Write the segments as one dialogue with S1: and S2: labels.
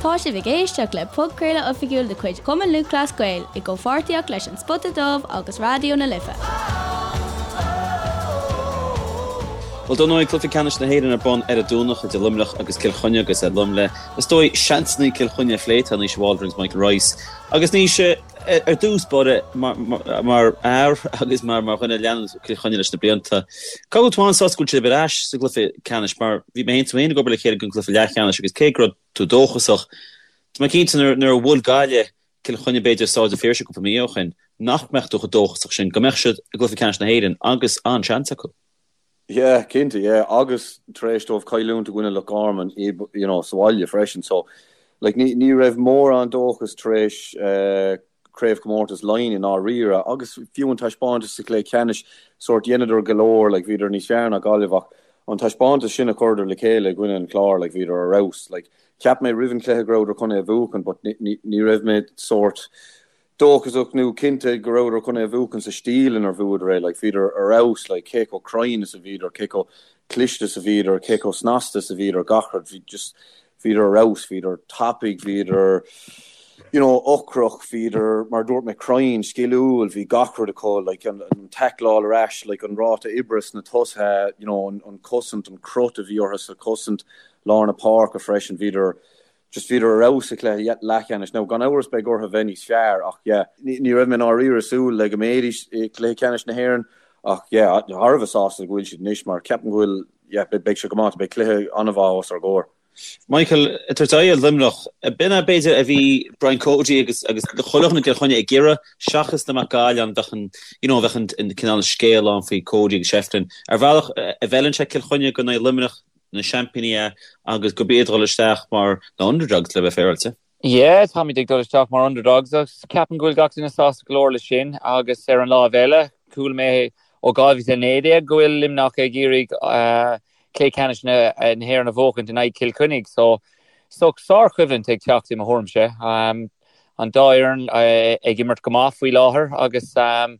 S1: Tá sibh ag éisteacht le podchraoladh oifigiúil de chuid Chumann Lúthchleas Gael i gcomhpháirtíocht leis An Spota Dubh agus Raidió na Life.
S2: Bhuel, dar ndóigh, cluiche ceannais na hÉireann ar bun ar an Domhnach idir Luimneach agus Cill Chainnigh agus liom le, is dóigh, seansanna Cill Chainnigh a phlé, tá Naoise Waldron agus Michael Rice. Agus Naoise, ar dtús báire, mar fhear agus mar dhuine a leanann Cill Chainnigh leis na blianta, cá bhfuil tú an-sásta go bhfuil sibh ar ais sa gcluiche ceannais mar bhí mé féin tú féin ag obair le chéile don gcluiche leathcheannais agus cé go raibh tú dóchasach, tá mé cinnte nuair a bhuail Gaillimh Cill Chainnigh b'fhéidir i Staid an Phiarsaigh cúpla mí ó shin, nach mbeadh tú chomh dóchasach sin go mbeadh siad i gcluiche ceannais na hÉireann agus an-seans acu.
S3: Yeah, cinnte, yeah, agus tar éis dóibh cailliúint i gcoinne Loch Garman i, you know, sa bhaile freisin, so, like, ní, ní raibh mórán dóchas tar éis eh, craobhchomórtas Laighean i ndáiríre, agus fiú an taispeántas sa chluiche ceannais, sórt, dheineadar go leor, like, bhíodar níos fearr ná Gaillimh ach an taispeántas sin a chuireadar le chéile i gcoinne an Chláir, like, bhíodar ar fheabhas, like, cheap mé roimh an chluiche go rabhadar chun é a bhuachan but ní, ní, ní raibh mé sórt, dóchasach nó cinnte go rabhadar chun é a bhuachan sa stíl inar bhuadar é, like bhíodar ar fheabhas, like cé chomh cruinn is a bhíodar, cé chomh cliste is a bhíodar, cé chomh snasta is a bhíodar, gach rud, bhí just, bhíodar ar fheabhas, bhíodar tapaidh, bhíodar, you know, ocrach, bhíodar, mar a dúirt mé, cruinn, sciliúil, bhí gach rud acu, like an, an taicleáil ar ais, like an ráta oibre sna tosaithe, you know, an, an cosaint, an crot a bhí orthu sa chosaint, lár na páirce freisin, bhíodar, Just bhíodar ar fheabhas sa chluiche leathcheannais. Now, gan amhras beidh orthu bheith níos fearr ach yeah, ní raibh mé i ndáiríre ag súil le go mbeidís i gcluiche ceannais na hÉireann ach yeah, thar a bheith sásta go bhfuil siad anois mar ceapaim go bhfuil, yeah, beidh sé go maith, beidh cluiche an-mhaith os ár gcomhair.
S2: Michael, ag tabhairt aghaidh ar Luimneach, b'in é b'fhéidir a bhí Brian Cody agus agus chuile dhuine i gCill Chainnigh ag iarraidh seachas dá mbeadh Gaillimh ann bheadh an you know bheadh an cineál scéal ann faoi Cody agus Shefflin. Ar bhealach a bhfeileann sé Cill Chainnigh go n-aghaidh Luimneach na seaimpíní é agus gurb iad ag dul isteach mar na underdogs le bheith féaráilte.
S4: Yeah, táimid ag dul isteach mar underdogs agus ceapaim go bhfuil gach duine sásta go leor leis sin agus ar an láimh eile, chuala mé ó 2019 go bhfuil Luimneach ag iarraidh cluiche ceannais na hÉireann a bhuachaint in aghaidh Chill Chainnigh so so sárchoimhlint ag teacht i mo thuairimse. An dá fhoireann ag imirt go maith faoi láthair agus ar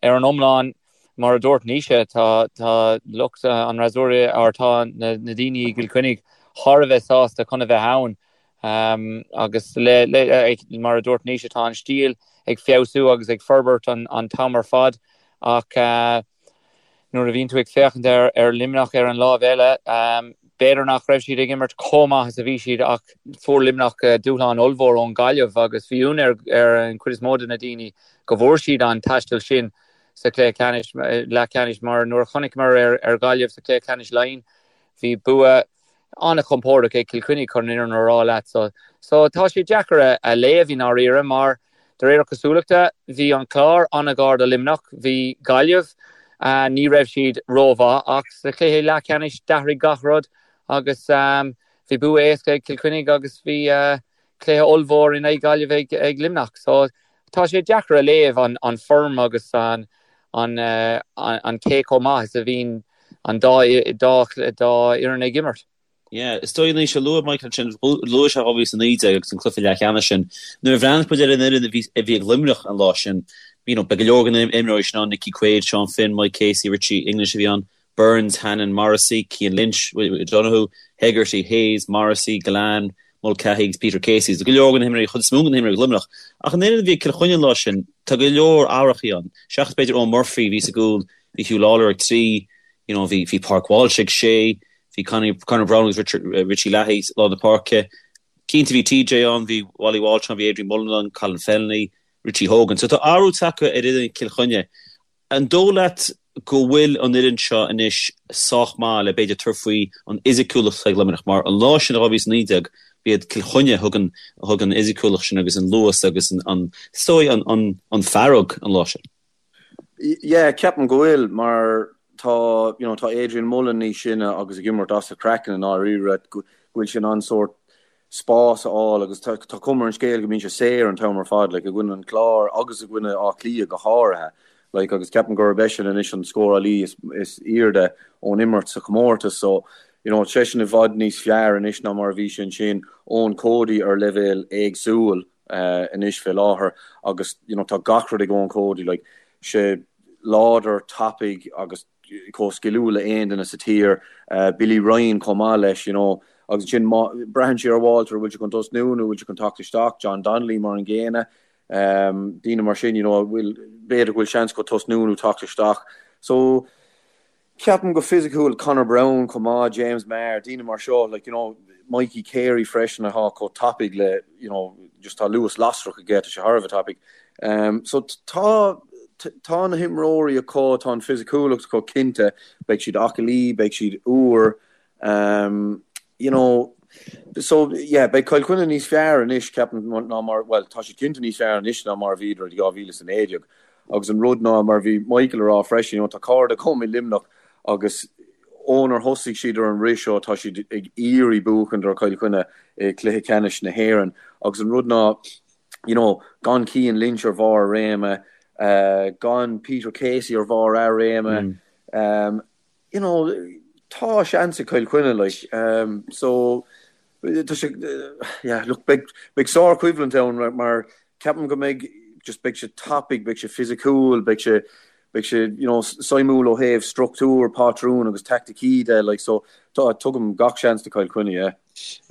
S4: an iomlán Mar a dúirt Naoise, tá tá lucht an fhreasúra or tá na daoine i gCill Chainnigh thar a bheith sásta chun a bheith ann agus le le mar a dúirt Naoise tá an stíl ag feabhsú agus ag forbairt an an t-am ar fad ach nuair a bhíonn tú ag féachaint ar ar Luimneach ar an láimh eile b'fhéidir nach raibh siad ag imirt chomh maith is a bhí siad ach fuair Luimneach dúshlán ollmhór ón Gaillimh agus bhí ionadh ar ar an chuid is mó de na daoine go bhfuair siad an taisteal sin sa chluiche ceannais, leathcheannais mar nuair a chonaiceamar ar Ghaillimh sa chluiche ceannais Laighean, bhí bua an-chompordach ag Cill Chainnigh chun an fhírinne a rá leat. So, so tá sé deacair a léamh i ndáiríre mar de réir cosúlachta bhí an Clár an-ghar do Luimneach, bhí Gaillimh, ní raibh siad rómhaith ach sa chluiche leathcheannais d'athraigh gach rud agus bhí bua éasca ag Cill Chainnigh agus bhí cluiche ollmhór in aghaidh Gaillimh ag Luimneach. So tá sé deacair a léamh an form agus an an cé chomh maith is a bhíonn an dá dá dá fhoireann ag imirt.
S2: Yeah, is dóigh Naoise, luaigh Michael ansin, luaigh sé 2019 agus an cluiche leathcheannais sin. Nuair a bhreathnaigh muid ar an fhoireann a bhí a bhí ag Luimneach an lá sin, you know, beidh go leor de na imreoirí sin ann, Nicky Quaid, Sean Finn, Mike Casey, Richie English a bhí ann. Burns, Hannon, Morrissey, Cian Lynch, O'Donoghue, Hegarty, Hayes, Morrissey, Gillane, Mulcahy agus Peter Casey. Tá go leor de na himreoirí, chuid is mó de na himreoirí ag Luimneach. Ach an fhoireann a bhí ag Cill Chainnigh an lá sin, tá go leor athrachaí ann. Seachas b'fhéidir Eoin Murphy a bhí sa gcúl, bhí Huw Lawlor ag 3, you know, bhí bhí Pádraig Walsh ag 6, bhí Conor Conor Browne agus Richard, Richie Leahy lár na páirce. Cinnte bhí TJ ann, bhí Wally Walsh ann, bhí Adrian Mullen ann, Colin Fennelly, Richie Hogan. So tá athrú tagtha ar fhoireann Chill Chainnigh. An dóigh leat go bhfuil an fhoireann seo anois sách maith le b'fhéidir tabhairt faoi an fhisiciúlacht atá ag Luimneach? Mar an lá sin i 2019 b'iad Cill Chainnigh a thug an a thug an fhisiciúlacht sin agus an luas agus an an is dóigh an an an fearg an lá sin.
S3: Yeah, ceapaim go bhfuil mar tá you know tá Adrian Mullen níos sine agus ag imirt as a chraiceann i ndáiríre go bhfuil sé in ann sórt spás a fháil agus tá cuma ar an scéal go mbíonn sé saor an t-am ar fad, like, i gcoinne an Chláir agus i gcoinne Áth Cliath go háirithe, like, agus ceapaim gurb eisean anois an scórálaí is, is airde ón imirt sa chomórtas so, you know, seisean i bhfad níos fearr anois ná mar a bhí sé ansin, Eoin Cody ar leibhéal éagsúil uh, anois fé láthair agus, you know, tá gach rud ag Eoin Cody, like, sé láidir, tapaidh agus chomh sciliúil le aon duine sa tír, Billy Ryan chomh maith leis, you know. Agus ansin má, braitheann sé ar Walter, bhfuil sé chun tosnú nó bhfuil sé chun teacht isteach, John Donnelly mar an gcéanna, daoine mar sin, you know, bhfuil, b'fhéidir go bhfuil seans acu tosnú nó teacht isteach. So, Ceapaim go fisiciúil, Conor Browne chomh maith, James Maher, daoine mar seo, like, you know, Mikey Carey freisin atá chomh tapaidh le, you know, just tá luas lasrach aige, tá sé thar a bheith tapaidh. Um, so tá, tá na himreoirí acu, tá an fisiciúlacht acu cinnte, beidh siad aclaí, beidh siad úr, um, you know, so yeah, beidh Cill Chainnigh níos fearr anois, ceapaim, ná mar, well, tá siad cinnte níos fearr anois ná mar a bhíodar i 2019. Agus an rud ná, mar a bhí Michael a rá freisin, you know, tá cairde agam i Luimneach agus ónar thosaigh siad ar an rith seo tá siad ag iarraidh buachaint ar Chill Chainnigh i gcluiche ceannais na hÉireann. Agus an rud ná, you know, gan Cian Lynch ar bharr a réime, gan Peter Casey ar bharr a réime, you know, tá seans ag Cill Chainnigh, like, so, tá sé, yeah, look, beidh, beidh sár-choimhlint ann mar ceapaim go mbeidh, just beidh sé tapaidh, beidh sé fisiciúil, beidh sé, beidh sé, you know, suimiúil ó thaobh struchtúr, pátrún agus taicticí de, like, so, tá, tugaim gach seans do Chill Chainnigh, yeah.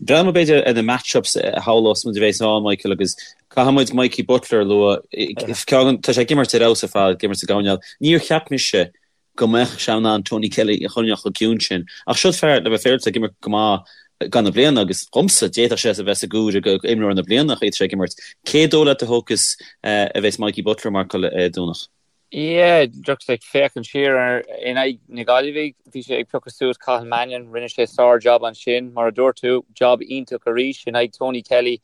S2: Breathnóidh muid b'fhéidir ar na match-ups a shamhlós muid a bheas ann, Michael, agus caithfidh muid Mikey Butler a lua. Tá sé ag imirt ar fheabhas ar fad, ag imirt sa gcoirnéal. Níor cheap mise go mbeadh sé in ann Tony Kelly a choinneáil chomh ciúin sin. Ach siod fear, le bheith féaráilte, ag imirt go maith gan na bliana agus dhomsa, d'fhéadfadh sé a bheith sa gcomhaireamh go imreoir na bliana an chaoi atá sé ag imirt. Cé dóigh leat a thiocfas a bheas Mikey Butler ag marcáil ar an Domhnach?
S4: Yeah, just ag féachaint siar ar in aghaidh na Gaillimhe, bhí sé ag piocadh suas Cathal Mannion, rinne sé sár-jab ansin, mar a dúirt tú, jab iontach arís in aghaidh Tony Kelly.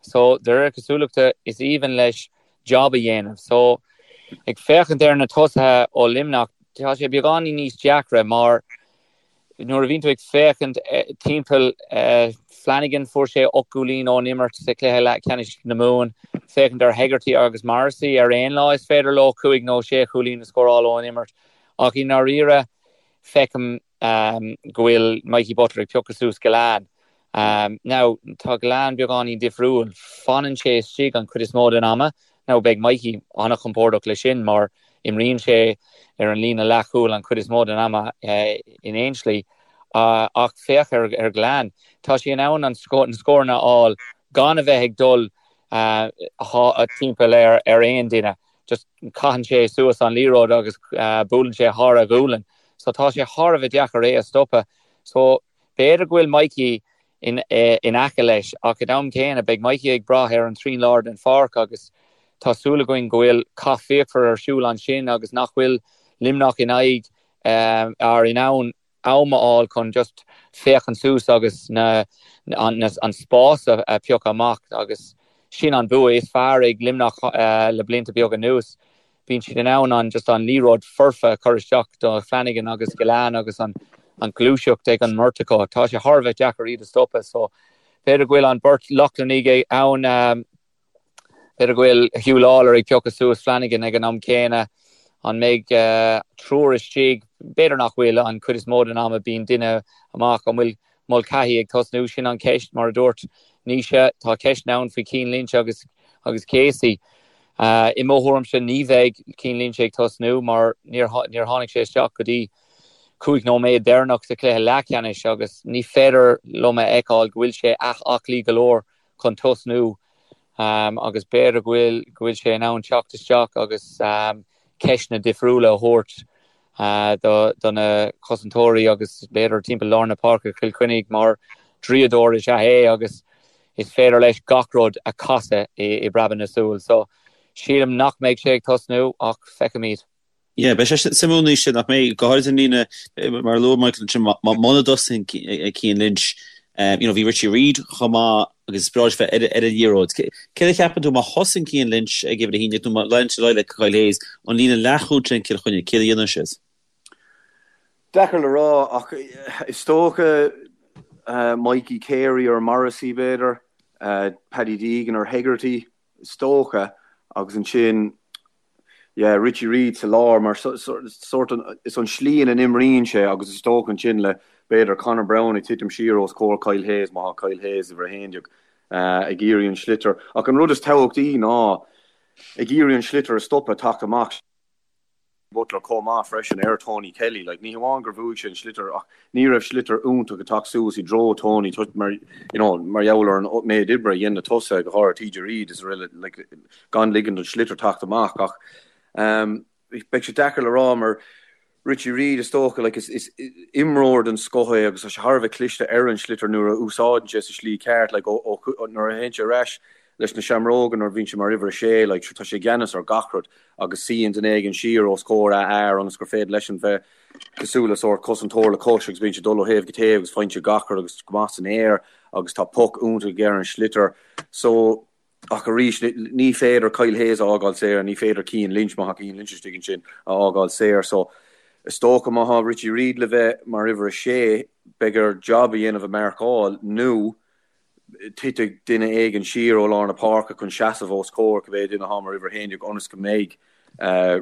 S4: So, de réir cosúlachta, is aoibhinn leis jab a dhéanamh. So, ag féachaint ar na tosaithe ó Luimneach, tá sé beagáinín níos deacra mar nuair a bhíonn tú ag féachaint timpeall Flanagan, fuair sé 8 gcúilín ón imirt sa chluiche leathcheannais na Mumhan. Féachaint ar Hegarty agus Morrissey ar aon lá is féidir leo cúig nó sé chúilín a scóráil ón imirt. Ach i ndáiríre, feicim go bhfuil Mikey Butler ag piocadh suas Gillane. Now, tá Gillane beagáinín difriúil. Fanann sé istigh an chuid is mó den ama. Now, beidh Mikey an-chompordach leis sin mar imríonn sé ar an líne leathchúil an chuid is mó den ama in aon slí. Ach féach ar Gillane. Tá sé in ann na scóranna a fháil gan a bheith ag dul timpeall ar aon duine. Just caitheann sé suas an liathróid agus buaileann sé thar a ghualainn. So tá sé thar a bheith deacair é a stopadh. So b'fhéidir go bhfuil Mikey in in aice leis ach ag an am céanna beidh Mikey ag brath ar an trian lár den pháirc agus tá súil againn go bhfuil cath fíochmhar ar siúl ansin agus nach bhfuil Luimneach in aghaidh ar in ann am a fháil chun just féachaint suas agus na an an spás a phiocadh amach agus sin an bua is fearr ag Luimneach le blianta beaga anuas. Bíonn siad in ann an just an liathróid foirfe a chur isteach do Flanagan agus Gillane agus an an ghluaiseacht ag an mbeirt acu. Tá sé thar a bheith deacair iad a stopadh so b'fhéidir go bhfuil an beirt Lochlannaigh ann B'fhéidir go bhfuil Huw Lawlor ag piocadh suas Flanagan ag an am céanna. An mbeidh triúr istigh? B'fhéidir nach bhfuil. An chuid is mó den ama bíonn duine amach. An bhfuil Mulcahy ag tosnú? Sin an cheist. Mar a dúirt Naoise, tá ceisteanna ann faoi Cian Lynch agus agus Casey. I mo thuairimse ní bheidh Cian Lynch ag tosnú mar níor níor tháinig sé isteach go dtí 5 nóiméad deireanach sa chluiche leathcheannais agus ní féidir liom a fheiceáil go bhfuil sé aclaí go leor chun tosnú agus b'fhéidir go bhfuil go bhfuil sé in ann teacht isteach agus ceisteanna difriúla a thabhairt do do na cosantóirí agus b'fhéidir timpeall lár na páirce Chill Chainnigh mar draíodóir is ea é agus is féidir leis gach rud a chasadh i i bpreabadh na súl. So sílim nach mbeidh sé ag tosnú ach feicfimid.
S2: Yeah, beidh sé suimiúil Naoise nach mbeidh, go háirid an líne, mar a luaigh Michael ansin, muna dtosaíonn Cian Lynch, you know, bhí Richie Reid chomh maith agus is breá leis bheith ar an liathróid. Céard a cheapann tú má thosaíonn Cian Lynch ag uimhir a haon nó má leanann sé ar aghaidh le Kyle Hayes, an líne leathchúil sin Cill Chainnigh, céard a dhéanann siad?
S3: Deacair le rá ach is dócha Mikey Carey ar Morrissey b'fhéidir, Paddy Deegan ar Hegarty is dócha agus ansin Yeah, Richie Reid sa lár mar sórt is an slí ina n-imríonn sé agus is dócha ansin le b'fhéidir Conor Browne ag titim siar os comhair Kyle Hayes má tá Kyle Hayes uimhir 11 ag iarraidh an sliotar. Ach an rud is tábhachtaí ná ag iarraidh an sliotar a stopadh teacht amach. Butler chomh maith freisin ar Tony Kelly. Like, ní hamháin gur bhuaigh sé an sliotar ach ní raibh sliotar iontach ag teacht suas i dtreo Tony mar, you know, mar gheall ar an méid oibre a dhein na tosaithe, go háirithe TJ Reid is araile, like, gan ligean don sliotar teacht amach ach um, beidh sé deacair le rá mar Richie Reid is dócha, like, is, is imreoir den scoth é agus tá sé thar a bheith cliste ar an sliotar nuair a úsáideann sé sa slí ceart, like, ó, ó, nuair a théann sé ar ais leis na Seamróga nuair a bhíonn sé mar uimhir a sé, like, tá sé i gceannas ar gach rud agus suíonn duine éigin siar os comhair a fhear ionas gur féidir leisean bheith cosúil le sórt cosantóir le cois agus bíonn sé ag dul ó thaobh go taobh agus faigheann sé gach rud agus go maith san aer agus tá poc iontach aige ar an sliotar. So, ach arís, ní féidir Kyle Hayes a fhágáil saor, ní féidir Cian Lynch, má tá Cian Lynch istigh ansin, a fhágáil saor. So, is dócha má tá Richie Reid le bheith mar uimhir a sé, beidh air jab a dhéanamh i marcáil nó titfidh duine éigin siar ó lár na páirce chun seasamh os comhair cibé duine atá mar uimhir 11 ionas go mbeidh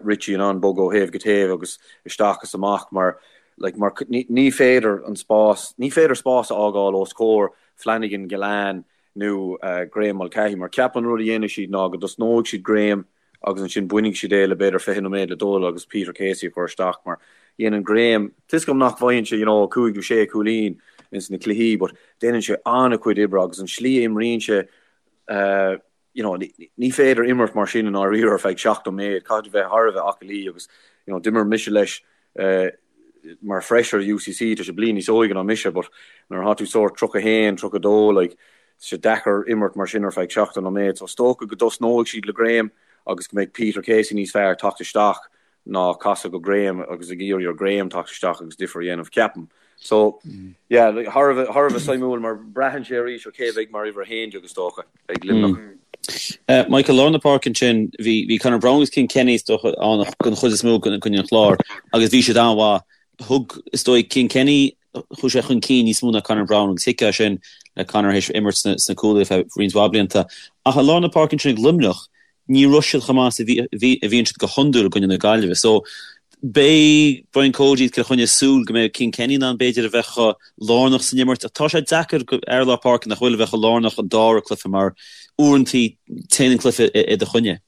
S3: Richie in ann bogadh ó thaobh go taobh agus isteach is amach mar like mar ní féidir an spás, ní féidir spás a fhágáil os comhair Flanagan, Gillane nó Graeme Mulcahy mar ceapaim an rud a dhéanfaidh siad ná go dtosnóidh siad Graeme agus ansin bainfidh siad é le b'fhéidir 20 nóiméad le dul agus Peter Casey a chur isteach mar dhéanann Graeme, tá 'fhios agam nach bhfaigheann sé you know 5 nó 6 cúilín ins na cluichí but déanann sé an-chuid oibre agus an slí a imríonn sé eh you know ní féidir imirt mar sin i ndáiríre ar feadh 70 nóiméad, caithfidh tú bheith thar a bheith aclaí agus you know d'imir mise leis eh mar fresher i UCC, tá sé bliain níos óige ná mise but nuair atá tú sórt 31, 32 like tá sé deacair imirt mar sin ar feadh 70 nóiméad so is dócha go dtosnóidh siad le Graeme agus go mbeidh Peter Casey níos fearr teacht isteach ná casadh go Graeme agus ag iarraidh ar Graeme teacht isteach agus difear a dhéanamh ceapaim. So yeah like thar a bheith thar a bheith suimiúil mar braitheann sé arís ar cé a bheidh mar uimhir 11 is dócha ag Luimneach.
S2: Michael, lár na páirce ansin, bhí bhí Conor Browne agus Cian Kenny is dócha ann den chuid is mó i gcoinne an Chláir agus bhí siad an-mhaith. Thug, is dóigh, Cian Kenny, chuaigh sé chun cinn níos mó ná Conor Browne agus thuigfeá sin le Conor théis imirt sna cúlaithe ar feadh roinnt mhaith blianta. Ach i lár na páirce ansin ag Luimneach, ní raibh siad chomh maith is a bhí a bhíonn siad go hiondúil i gcoinne na Gaillimhe. So, beidh Brian Cody agus Cill Chainnigh ag súil go mbeidh Cian Kenny in ann b'fhéidir a bheith chomh lárnach san imirt. Ach tá sé deacair do fhear lár páirce nach bhfuil a bheith chomh lárnach an dara cluiche mar uaireantaí téann an cluiche i do choinne.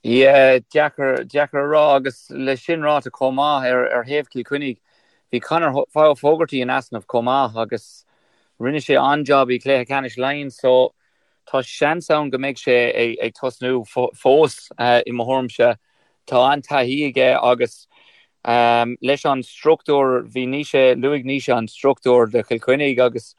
S4: Yeah, deacair, deacair a rá agus le sin ráite chomh maith ar, ar thaobh Chill Chainnigh, bhí Conor Fogarty in easnamh chomh maith agus rinne sé an-job i gcluiche ceannais Laighean so tá seans ann go mbeidh sé ag tosnú fós i mo thuairimse. Tá an-taithí aige agus leis an struchtúr, bhí Naoise, luaigh Naoise an struchtúr do Chill Chainnigh agus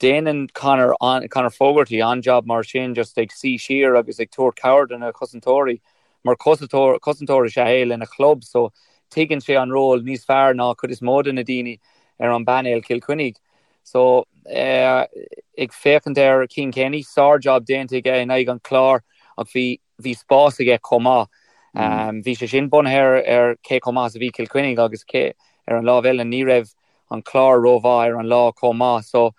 S4: déanann Conor, Conor Fogarty an-job mar sin just ag suí siar agus ag tabhairt cabhair do na cosantóirí mar cosantóir, cosantóir is ea é lena chlub so tuigeann sé an ról níos fearr ná cuid is mó de na daoine ar an bpainéal Cill Chainnigh. So, ag féachaint ar Cian Kenny, sár-job déanta aige in aghaidh an Chláir ach bhí, bhí spás aige chomh maith. Bhí sé sin bunaithe ar, ar cé chomh maith is a bhí Cill Chainnigh agus cé, ar an lámh eile, ní raibh an Clár rómhaith ar an lá chomh maith. So,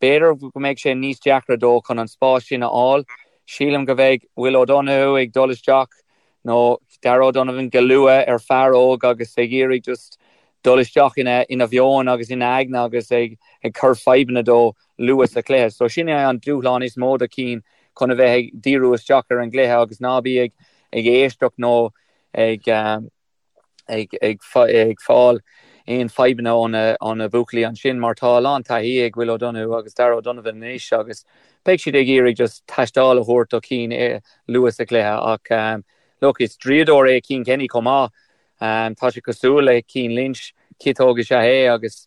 S4: b'fhéidir go mbeidh sé níos deacra dó chun an spás sin a fháil. Sílim go mbeidh Will O'Donoghue ag dul isteach nó Darragh O'Donovan go luath ar fear óg agus ag iarraidh just dul isteach ina ina mheon agus ina aigne agus ag ag cur fadhbanna dó luath sa chluiche. So sin é an dúshlán is mó do Cian chun a bheith ag díriú isteach ar an gcluiche agus ná bí ag ag éisteacht nó ag ag ag ag fáil aon fadhbanna ó na ó na buachaillí ansin mar tá a lán taithí ag Will O'Donoghue agus Darragh O'Donovan anois agus beidh siad ag iarraidh just taisteáil a thabhairt do Cian luath sa chluiche ach look is draíodóir é Cian Kenny chomh maith Tá sé cosúil le Cian Lynch, ciotóg is ea é agus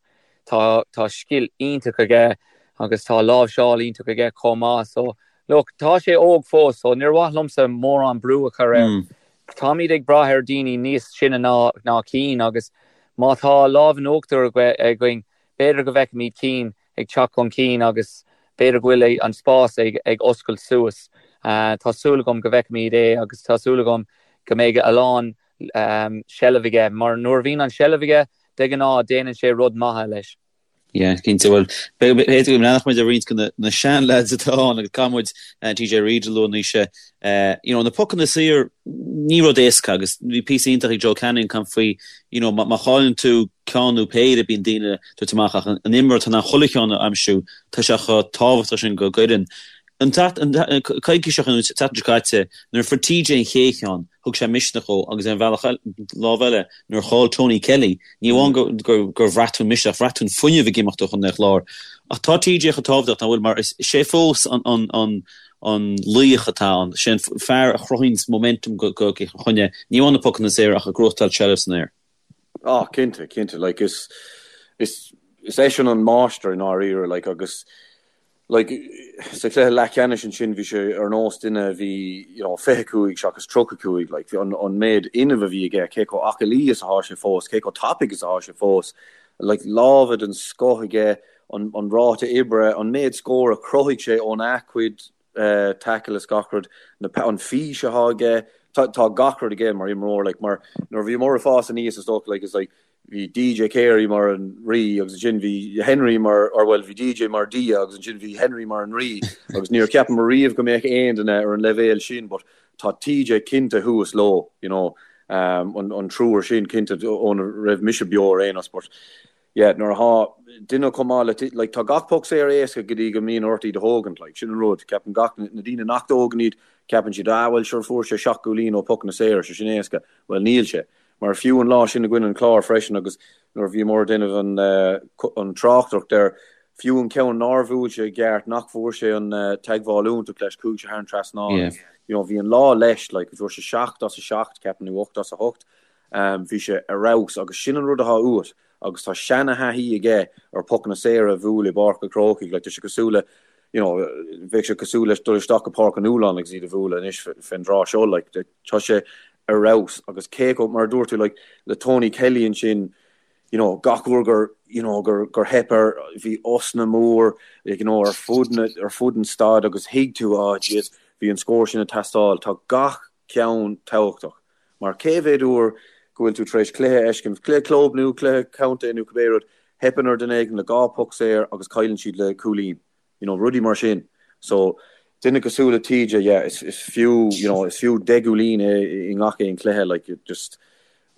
S4: tá tá scil iontach aige agus tá láimhseáil iontach aige chomh maith. So, look, tá sé óg fós so níor mhaith liomsa mórán brú a chur air. Táimid ag brath ar daoine níos sine ná ná Cian agus má tá lámh in uachtar againn, b'fhéidir go bhfeicfimid Cian ag teacht chun cinn agus b'fhéidir go bhfuil an spás ag ag oscailt suas. Tá súil agam go bhfeicfimid é agus tá súil agam go mbeidh a lán seilbh aige mar nuair a bhíonn an seilbh aige, de ghnáth déanann sé rud maith leis.
S2: Yeah, cinnte. Bhuel, b'fhéidir go mbreathnódh muid ar roinnt de na sean-lads atá ann agus caithfidh muid TJ Reid a lua Naoise. You know, na pocanna saor, ní rud éasca agus bhí píosa iontach ag Joe Canning ag caint faoi, you know, má chailleann tú ceann nó péire bíonn daoine ag tabhairt amach ach an imreoir atá in ann chuile cheann a aimsiú, tá sé chomh tábhachtach sin don fhoireann. An coicís seo nó an tseachtain seo caite, nuair a fuair TJ an chéad cheann, thug sé misneach dhó agus ar an bhealach eile, lámh eile, nuair a chaill Tony Kelly, ní amháin gur bhraith tú an misneach, bhraith tú an fuinneamh ag imeacht ó Chontae an Chláir. Ach tá TJ chomh tábhachtach, nach bhfuil, mar is é fós an laoch atá ann, sé an fear a chruthaíonns momentum do Chill Chainnigh, ní amháin na pocanna saora ach ag gnóthachtáil seilbh san aer.
S3: Ah, cinnte, cinnte, like is, is, is eisean an máistir i ndáiríre, like agus like sa chluiche leathcheannais ansin bhí sé ar nós duine a bhí, you know, 25 seachas 35, like an, an méid fhuinnimh a bhí aige, cé chomh aclaí is atá sé fós, cé chomh tapaidh is atá sé fós, like lámha den scoth aige, an, an ráta oibre, an méid scór a chruthaigh sé óna chuid tackle is gach rud, na, an fís atá aige, tá, tá gach rud aige mar imreoir, like, mar nuair a bhíomar ag fás aníos is dócha, like, is like, bhí DJ Carey mar an rí agus ansin bhí Henry mar, or bhuel, bhí DJ mar Dia agus ansin bhí Henry mar an rí agus níor cheapamar riamh go mbeadh aon duine ar an leibhéal sin but tá TJ cinnte thuas leo, you know, um, an, an triúr sin cinnte óna raibh mise beo ar aon nós but Yeah, nuair atá duine chomh maith le, like, tá gach poc saor éasca go dtí go mbíonn ort iad a thógaint, like, sin an rud. Ceapann gach, na daoine nach dtógann iad, ceapann siad, ah, bhuel, sure, fuair sé seacht gcúilín ó pocanna saora, sé sin éasca. Bhuel, níl sé. Mar fiú an lá sin i gcoinne an Chláir freisin agus nuair a bhíomar ag déanamh an, an tráchtaireacht air, fiú an ceann nár bhuail sé i gceart, nach bhfuair sé an teagmháil iontach leis, chuaigh sé thar an trasnán. Yeah. You know, bhí an lá leis, like, fuair sé seacht as a seacht, ceapaim, nó ocht as a hocht. Bhí sé ar fheabhas agus sin an rud atá uait agus tá seana-thaithí aige ar pocanna saora a bhualadh i bPáirc an Chrócaigh. Like, tá sé cosúil le, you know, bheadh sé cosúil leis dul isteach go Páirc an Fhualáin agus iad a bhualadh anois fén dtráth seo. Like, tá sé ar fheabhas agus cé chomh, mar a dúirt tú, like, le Tony Kelly ansin, you know, gach uair gur, you know, gur, gur theip air, bhí osna mór, like, you know, ar fud na, ar fud an staid agus thuig tú, oh, jeez, bhí an scór sin ag teastáil. Tá gach ceann tábhachtach. Mar cé mhéad uair go bhfuil tú tar éis cluiche a fheiscint, cluiche club nó cluiche contae nó cibé rud, theipeann ar duine éigin le dhá poc saor agus cailleann siad le cúilín. You know, rudaí mar sin. So, duine cosúil le TJ, yeah, is, is fiú, you know, is fiú deich gcúilín é i ngach aon cluiche, like, just,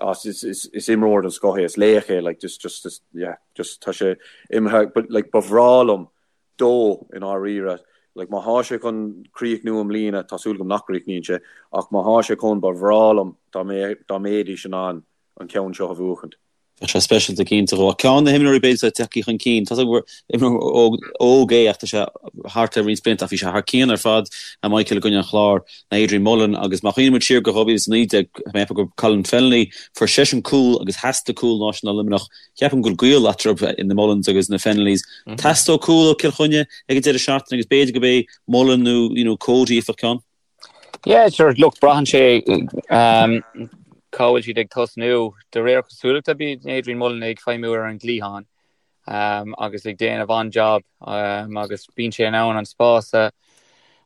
S3: ah, is, is, is imreoir den scoth é, is laoch é, like, just, just, just, yeah, just tá sé imithe, but, like, ba bhreá liom dó i ndáiríre. Like, má thá sé chun críochnú i mbliana, tá súil agam nach gcríochnaíonn sé, ach má thá sé chun, ba bhreá liom dá dá mbeidís in ann an ceann seo a bhuachaint.
S2: Bheadh sé speisialta cinnte dhó. Ach ceann de na himreoirí b'fhéidir atá tagtha chun cinn, tá gur imreoir óg é ach tá sé thart le roinnt blianta ach bhí sé thar cionn ar fad, a Michael i gcoinne an Chláir, ná Adrian Mullen agus má chuimhníonn muid siar go 2019, tá mé ag ceapadh gur Colin Fennelly, fuair seisean cúl agus theastaigh cúl an lá sin ó Luimneach Ceapaim go bhfuil gaol eatarthu, na Mullins agus na Fennellys. Teastóidh cúl ó Cill Chainnigh ag an deireadh seachtaine agus b'fhéidir gurb é Mullen nó you know Cody a fhaigheadh ceann.
S4: Yeah, sure, look, braitheann sé um, cá bhfuil siad ag tosnú. De réir cosúlachta bíonn Adrian Mullen ag feidhmiú ar an gcliathán um, agus ag déanamh an-job um, agus bíonn sé in ann an spás a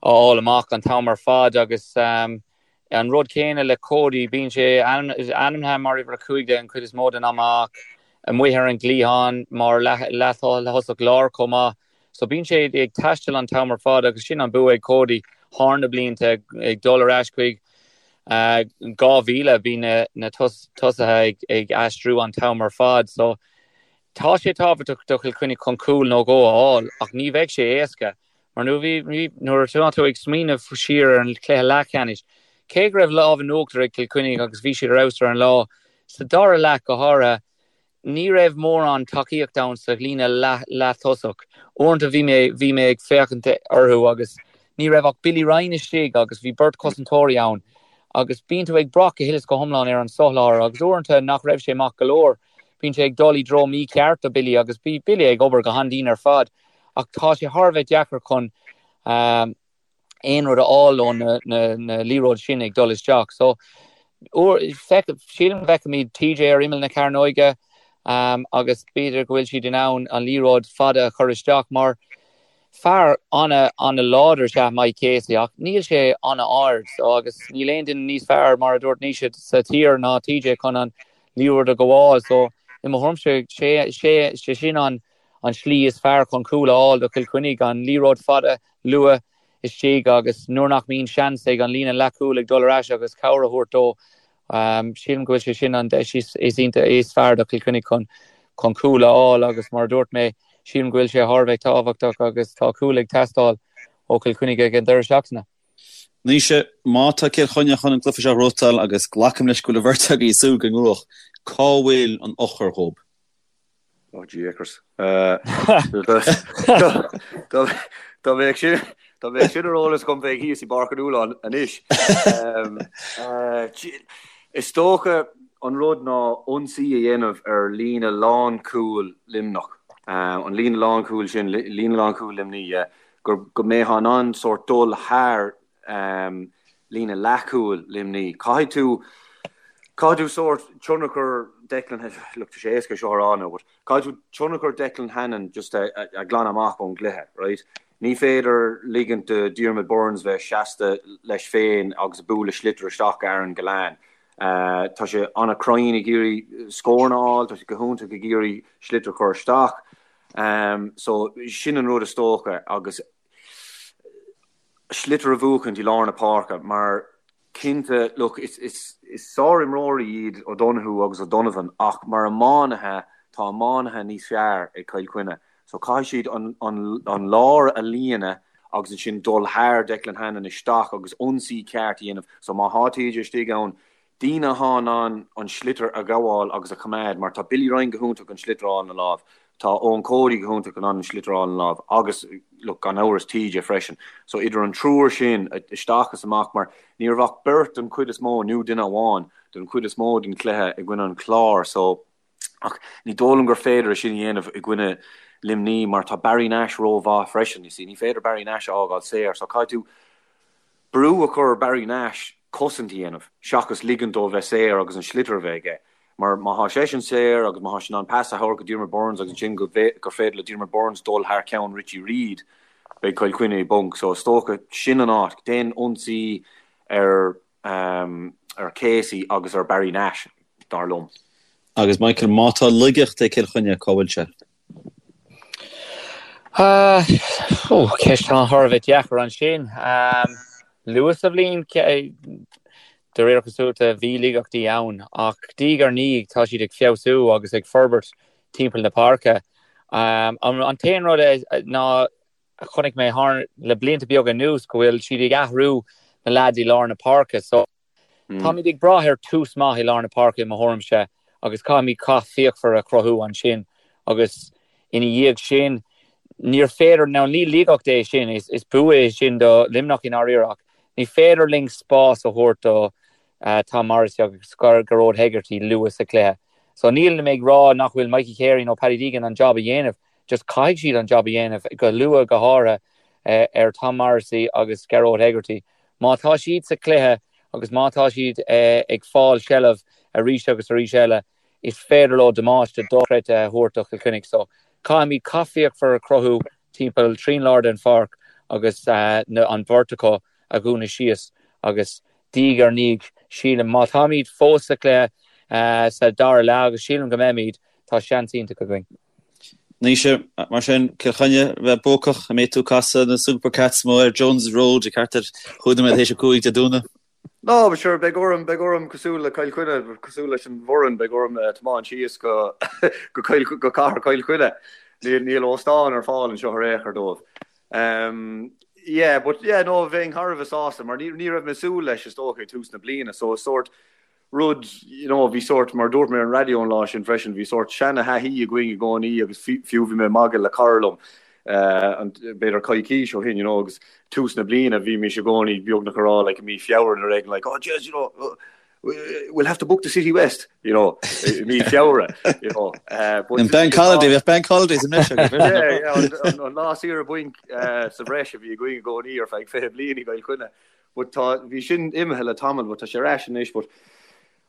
S4: fháil amach an t-am ar fad agus um, An rud céanna le Cody, bíonn sé ainmnithe mar uimhir 15 an chuid is mó den am ach amuigh ar an gcliathán mar leath-thosach láir chomh maith. So bíonn sé ag taisteal an t-am ar fad agus sin an bua ag Cody thar na blianta ag dul ar ais chuig 2000 bíonn na tosaithe ag aistriú an t-am ar fad. So tá sé tábhachtach do Chill Chainnigh chun cúl nó dhó a fháil ach ní bheidh sé éasca. Mar nuair atá tú ag smaoineamh siar ar an chluiche leathcheannais, cé go raibh lámh in uachtar ag Cill Chainnigh agus bhí siad ar fheabhas ar an lá, sa dara leath go háirithe, ní raibh mórán tacaíocht ann sa líne leath-thosach. Uaireanta bhí mé bhí mé ag féachaint orthu agus ní raibh ach Billy Ryan istigh agus bhí beirt chosantóirí ann agus bíonn tú ag brath go huile is go hiomlán ar an soláthar agus uaireanta nach raibh sé maith go leor. Bíonn sé ag dul i dtreo mícheart do Billy agus bhí Billy ag obair go han-dian ar fad. Ach tá sé thar a bheith deacair chun aon rud a fháil ó na liathróid sin ag dul isteach. So, sílim go bhfeicfimid TJ ar imeall na cearnóige agus b'fhéidir go bhfuil siad in ann an liathróid fada a chur isteach mar fear an-láidir is ea Mike Casey ach níl sé an-ard so agus níl aon duine níos fearr mar a dúirt Naoise sa tír ná TJ chun an liathróid a ghabháil. So, i mo thuairimse sé sin an an slí is fearr chun cúl a fháil do Chill Chainnigh, an liathróid fada luath istigh agus nuair nach mbíonn seans ag an líne leathchúil ag dul ar ais agus cabhair a thabhairt dó, sílim go bhfuil sé sin an deis is is fearr do Chill Chainnigh chun chun cúl a fháil agus mar a dúirt mé, sílim go bhfuil sé thar a bheith tábhachtach agus tá cúl ag teastáil. ó Chill Chainnigh ag an deireadh seachtaine.
S2: Naoise, má tá Cill Chainnigh chun an cluiche seo a ghnóthachtáil, agus glacaim leis go bhfuil an bheirt agaibh ag súil go ngnóthóidh, cá bhfuil an eochair dhóibh?
S3: Oh jeekers. Dá mbeadh sin dá mbeadh sin ar eolas agam bheinn thíos i bPáirc an Fhualáin anois. Is dócha an rud ná ionsaí a dhéanamh ar líne lánchúil Luimneach. An líne lánchúil sin, líne lánchúil Luimnigh, yeah. Go go mbeifeá in ann sórt dul thar líne leathchúil Luimnigh. Caithfidh tú, caithfidh tú sórt tionchar Declan, look tá sé éasca seo a rá now but caithfidh tú tionchar Declan Hannon just a a ghlanadh amach ón gcluiche, right? Ní féidir ligint do Diarmaid Byrnes bheith seasta leis féin agus ag bualadh sliotar isteach go Aaron Gillane. Tá sé an-chruinn ag iarraidh scóranna a fháil, tá sé go hiontach ag iarraidh sliotar a chur isteach. So sin an rud is dócha agus sliotar a bhuachaint i lár na páirce mar cinnte, look, is, is, is sárimreoirí iad O'Donoghue agus O'Donovan ach mar iománaithe, tá iománaithe níos fearr ag Cill Chainnigh. So caithfidh siad an, an, an lár a líonadh agus ansin dul thar Declan Hannon isteach agus ionsaí ceart a dhéanamh. So má thá TJ istigh ann, Daoine athá in ann an sliotar a ghabháil agus a choimeád mar tá Billy Ryan go hiontach an sliotar a fháil ina láimh, tá Eoin Cody go hiontach in ann an sliotar a fháil ina láimh agus look gan amhras TJ freisin. So idir an triúr sin isteach is amach mar ní raibh ach beirt den chuid is mó nó duine amháin den chuid is mó den chluiche i gcoinne an Chláir so ach ní dóigh liom gur féidir é sin a dhéanamh i gcoinne Luimní mar tá Barry Nash rómhaith freisin you see ní féidir Barry Nash a fhágáil saor so caithfidh tú brú a chur ar Barry Nash cosaint a dhéanamh seachas ligint dó bheith saor agus an sliotar a bheith aige. Mar má thá seisean saor agus má thá sé in ann pas a thabhairt go Diarmaid Byrnes agus ansin go gur féidir le Diarmaid Byrnes dul thar ceann Richie Reid, beidh Cill Chainnigh i bponc. So is dócha sin an áit. Déan ionsaí ar ar Casey agus ar Barry Nash, dar liom.
S2: Agus Michael, má tá laigeacht ag Cill Chainnigh, cá bhfuil sé?
S4: Ceist thar a bheith deacair ansin. Luath sa bhliain, de réir cosúlachta, bhí laigeachtaí ann, ach diaidh ar ndiaidh tá siad ag feabhsú agus ag forbairt timpeall na páirce. An t-aon rud ná a chonaic mé thar le blianta beaga anuas go bhfuil siad ag athrú na leaids i lár na páirce. So, Táimid ag brath ar tús maith i lár na páirce i mo thuairimse agus caithfimid cath fíochmhar a chruthú ansin agus ina dhiaidh sin níor féidir, now ní laigeacht é sin, is bua é sin do Luimneach i ndáiríre ach ní féidir linn spás a thabhairt do Tom Morrissey agus Gearóid Hegarty luath sa chluiche. So nílim ag rá nach bhfuil Mikey Carey nó Paddy Deegan an job a dhéanamh, just caithfidh siad an job a dhéanamh go luath go háirithe ar Tom Morrissey agus Gearóid Hegarty. Má tá siad sa chluiche agus má tá siad ag fáil seilbh arís agus arís eile, is féidir leo damáiste dochreidte a thabhairt do Chill Chainnigh. So, caithfimid cath fíochmhar a chruthú timpeall trín lár den pháirc agus an bheirt acu a dhúnadh síos agus diaidh ar ndiaidh, sílim, má táimid fós sa chluiche sa dara leath, agus sílim go mbeimid, tá seans iontach againn.
S2: Naoise, mar sin, Cill Chainnigh a bheith buacach, an mbeidh tú ag casadh na Super Cats amuigh ar Jones Road ag thart ar chúig nóiméad théis 5 Dé Domhnaigh?
S3: No, but sure, beidh orm, beidh orm cosúil le Cill Chainnigh, cosúil leis an bhfoireann, beidh orm tiomáint síos go, go Cill, go cathair Chill Chainnigh. Níl, níl óstán ar fáil anseo ar aon chor dóibh. Um, yeah, but yeah, no, bheinn thar a bheith sásta, mar ní, ní raibh mé ag súil leis is dócha ag tús na bliana, so is sórt, rud, you know, bhí sórt, mar a dúirt mé ar an raidió an lá sin freisin, bhí sórt seana-thaithí againn i gcónaí agus fiú bhí mé ag magadh le cara liom, b'fhéidir coicís ó shin, you know, agus tús na bliana bhímis i gcónaí beagnach ag rá like i mí Feabhra nó éigin like, oh jeez, you know, we'll have to book the City West, you know, i mí Feabhra, you know.
S2: Uh, but bank holiday, bheadh bank holidays i mbreis
S3: agaibh. Yeah, yeah, an lá saoire bainc uh, sa bhreis a bhí againn i gcónaí ar feadh 20 bliain i gCill Chainnigh. But tá, bhí sin imithe le tamall but tá sé ar ais anois but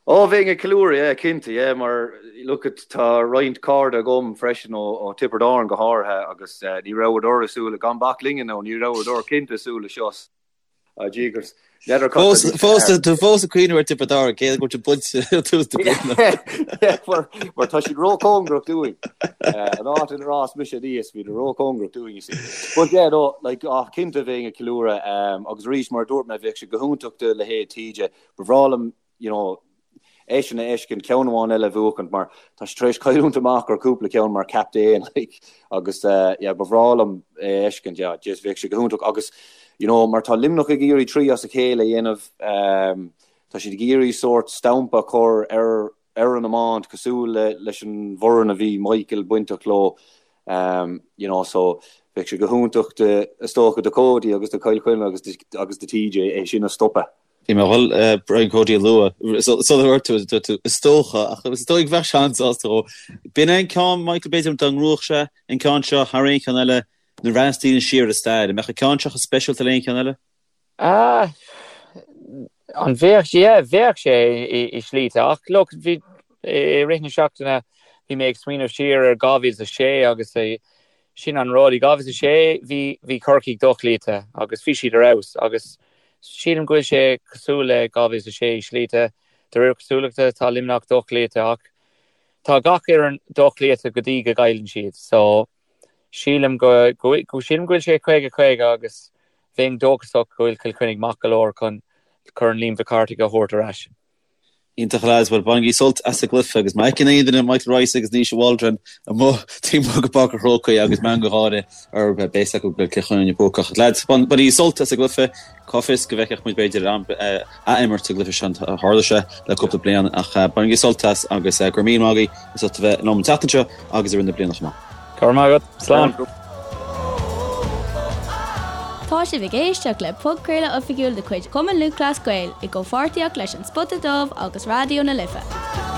S3: oh bheinn ag ceiliúradh yeah cinnte yeah mar look at tá roinnt cairde agam freisin ó ó Tiobraid Árann go háirithe agus eh, ní rabhadar ag súil gan bac linne nó ní rabhadar cinnte ag súil le seo. Ah jeekers.
S2: N'fheadar cad Fós tá fós tú fós ag cuimhneamh ar Tiobraid Árann cé go bhfuil siad buailte tús na bliana.
S3: Yeah, mar mar tá siad róchóngarach dúinn. Eh, an áit inar fhás mise aníos, bhíodar róchóngarach dúinn, you see. But yeah, no, like, ah, cinnte bheinn ag ceiliúradh, um, agus arís mar a dúirt mé, bheadh sé go hiontach do leithéid TJ. Ba bhreá liom, you know, eisean a fheiscint ceann amháin eile a bhuachaint mar tá sé tar éis cailliúint amach ar cúpla ceann mar captaen like agus yeah ba bhreá liom é a fheiscint yeah just bheadh sé go hiontach agus you know mar tá Luimneach ag iarraidh 3 as a chéile a dhéanamh um, tá siad ag iarraidh sórt stampa a chur ar ar an iomáint cosúil le leis an bhfoireann a bhí Michael bainteach leo um, you know so bheadh sé go hiontach de is dócha do Cody agus do Chill Chainnigh agus agus do TJ é sin a stopadh.
S2: Bhí mé ag dul Brian Cody a lua sular dhúirt tú, dúirt tú is dócha ach is dóigh bheadh seans sásta dhó. B'in é an ceann Michael b'fhéidir dá ngnóthódh sé an ceann seo thar aon cheann eile nuair a bhreathnaíos daoine siar ar an stair. An mbeadh an ceann seo chomh speisialta le aon cheann eile?
S4: Ah, an bheadh sé? Yeah, bheadh sé i slíte ach look, bhí i rith na seachtaine bhí mé ag smaoineamh siar ar 2006 agus sin an rud, i 2006 bhí bhí Corcaigh dochloíte agus bhí siad ar fheabhas agus sílim go bhfuil sé cosúil le 2006 i slíte, de réir cosúlachta tá Luimneach dochloíte ach tá gach fhoireann dochloíte go dtí go gcailleann siad so Sílim go go sílim go bhfuil sé 50 50 agus bheinn dóchasach go bhfuil Cill Chainnigh maith go leor chun Corn Liam Mhic Cárthaigh a thabhairt ar ais.
S2: Iontach a lads, bhuel bainigí sult as an gcluiche agus má fheiceann aon duine Michael Rice agus Naoise Waldron amuigh taobh amuigh de Pháirc an Chrócaigh agus meangadh gáire orthu beidh a fhios acu go bhfuil Cill Chainnigh buacach. Lads, bainigí sult as an gcluiche, cá bhfios go bhfeicfeadh muid b'fhéidir ath-imirt sa gcluiche seo, tharla sé le cúpla bliain ach bainigí sult as agus go raibh míle maith agaibh as ucht a bheith liom an tseachtain seo agus i rith na bliana chomh maith.
S4: Go raibh maith agat. Slán.
S1: Tá sibh ag éisteacht le podchraoladh oifigiúil de chuid Chumann Lúthchleas Gael i gcomhpháirtíocht leis An Spota Dubh agus Raidió na Life.